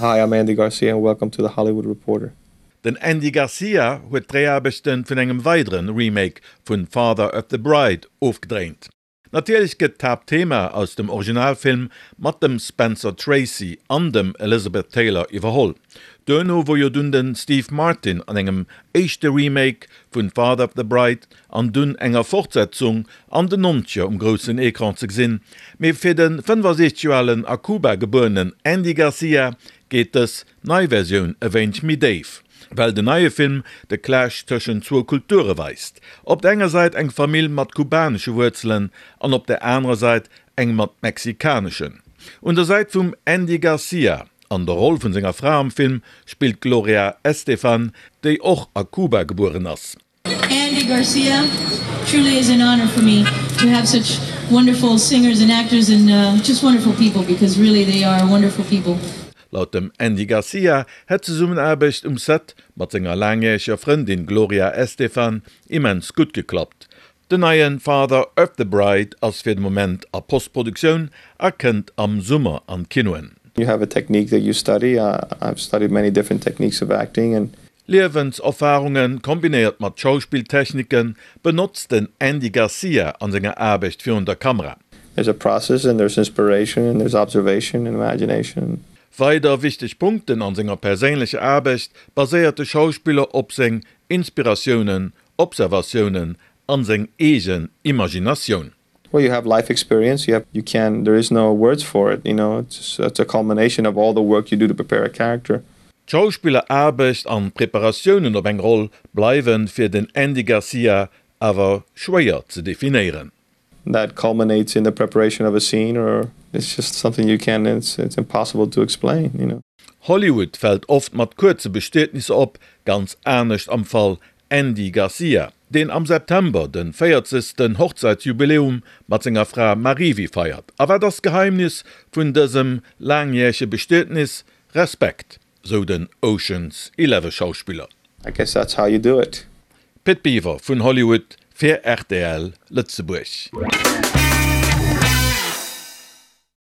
Hi, I'm Andy Garcia and welcome to The Hollywood Reporter. Den Andy Garcia huet d'Dréiaarbechte vun engem weidere Remake vun Father of the Bride ofgedréint. Natierlech gëtt d'Haaptthema aus dem Originalfilm mat dem Spencer Tracy an dem Elizabeth Taylor iwwerholl. Duerno wor jo dunn de Steve Martin an engem éischte Remake vun Father of the Bride an dunn enger Fortsetzung an den Nonzeger um groussen Ecran ze gesinn. Mee fir de 65 Joer alen a Kuba gebuerenen Andy Garcia geet dës nei Versioun e wéineg méi déif, well den neie Film de Clash tëschent zwou Kulture weist, op der enger Säit eng Famill mat kubanesche Wuerzelen an op der anerer Säit eng mat mexikaneschen. Un der Säit vum Andy Garcia an der Roll vun senger Fra am Film spillt d'Gloria Estefan, déi och a Kuba gebueren ass. Andy Garcia truly is an honor for me to have such wonderful singers and actors and uh, just wonderful people because really they are wonderful people. Laut dem Andy Garcia hätt d'Zesummenaarbecht um Set mat senger laangjäreger Frëndin Gloria Estefan immens gutt geklappt. Den neie Father of the Bride ass fir de Moment a Postproduktioun a kënnt am Summer an d'Kinoen. You have a technique that you study, I've studied many different techniques of acting and. Liewenserfarunge kombinéiert mat Schauspilltechnike benotzt den Andy Garcia an senger Aarbecht virun der Kamera. There's a process and there's inspiration and there's observation and imagination. Weider wichteg Punkten an senger perséinlecher Aarbecht baséiert de Schauspiller op seng Inspiratiounen, Observatiounen an seng eegen Imaginatioun. Well you have life experience, you have, you can, there is no words for it, you know, it's, it's a culmination of all the work you do to prepare a character. D'Schauspilleraarbecht an d'Preparatiounen op eng Roll bleiwe fir den Andy Garcia awer schwéier ze definéieren. That culminates in the preparation of a scene or it's just something you can't, it's, it's impossible to explain, you know. Hollywood fält oft mat kuerze Bestietnisser op, ganz anescht am Fall Andy Garcia, deen am September de 40. Hochzäitsjubiläum mat senger Fra Marivi feiert. A wat ass d'Geheimnis vun dësem laangjärege Bestietnis? Respekt, sou den Ocean's Eleven Schauspiller. I guess that's how you do it. Pit Biwer vun Hollywood fir rtl Lëtzebuerg.